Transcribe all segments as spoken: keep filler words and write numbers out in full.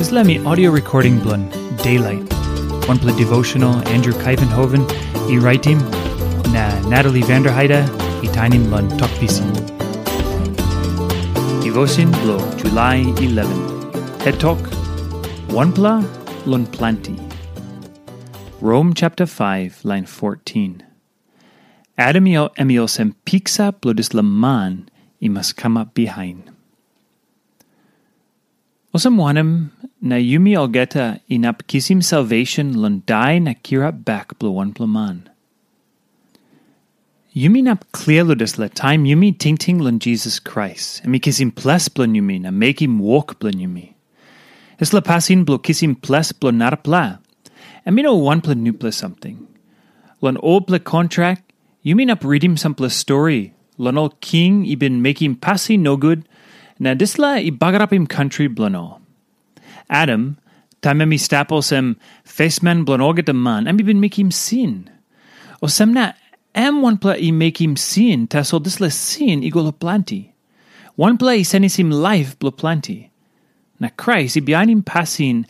Dispela mi audio recording bilong Daylight, wanpela devotional Andrew Kaivenhoven i raitim, na Natalie Vanderheide i tainim long Tok Pisin. Devotion bilong July eleven. Het tok, wanpela long planti. Rom chapter five, line fourteen. Adam i, em i olsem piksa bilong dispela man i mas kamap bihain. Olsem wanem na yumi olgeta inap kisim salvation long dai na kirap bek bilong wanpela man? Yumi inap klia long dispela taim yumi tingting long Jisas Krais, em i kisim ples bilong yumi na mekim wok bilong yumi. Dispela pasin bilong kisim ples bilong narapela, em i no wanpela nupela samting. Long olpela kontrak, yumi inap ritim sampela stori long ol king i bin mekim pasin nogut, na dispela i bagarapim kantri bilong ol. Adam, taim em i stap olsem fesman bilong olgeta man, em i bin mekim sin. Olsem na, em wanpela i mekim sin, tasol dispela sin i go long planti. Wanpela i senisim laip bilong planti. Na Krais i bihainim pasin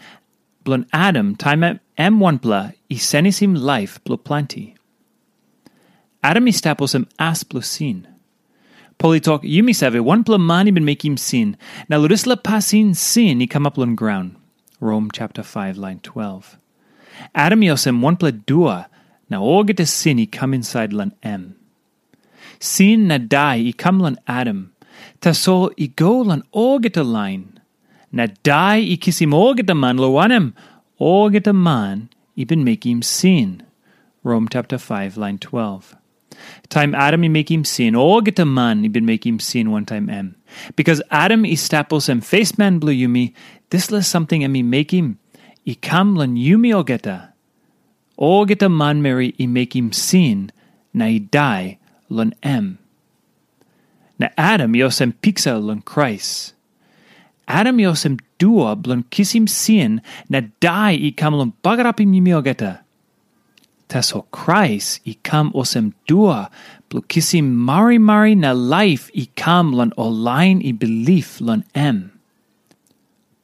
bilong Adam, taim em, em wanpela i senisim laip bilong planti. Adam i stap olsem as bilong sin. Pol i tok, yumi save, wanpela man i bin mekim sin, na long dispela pasin sin i kamap long graun. Rom chapter five, line twelve. Adam i olsem wanpela dua, na olgeta sin i kam insait long em. Sin na dai i kam long Adam, tasol i go long olgeta lain. Na dai i kisim olgeta man, long wanem, olgeta man i bin mekim sin. Rom chapter five, line twelve. Taim Adam i mekim sin, olgeta man i bin mekim sin wantaim em. Bikas Adam i stap olsem fesman bilong yumi, dispela samting em i mekim i kam long yumi olgeta. Olgeta manmeri i mekim sin na i dai long em. Na Adam i olsem piksa long Krais. Adam i olsem dua bilong kisim sin na dai i kam long bagarapim yumi olgeta. Tasol Krais i kam olsem dua bilong kisim marimari na laip i kam long ol lain i bilip long em.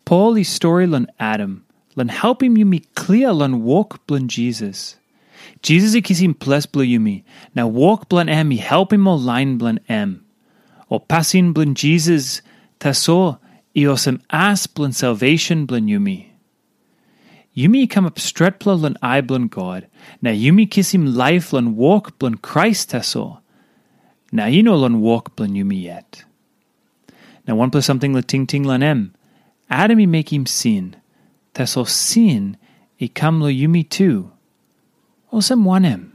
Pol i stori long Adam, long helpim yumi klia long wok bilong Jisas. Jisas i kisim ples bilong yumi, na wok bilong em i helpim ol lain bilong em. Ol pasin bilong Jisas tasol i olsem as bilong salvation bilong yumi. Yumi i kamap stretpela long ai bilong God, na yumi kisim laip long wok bilong Krais tasol, na i no long wok bilong yumi yet. Na wanpela samting long tingting long em, Adam i mekim sin, tasol sin i kam long yumi tu. Olsem wanem?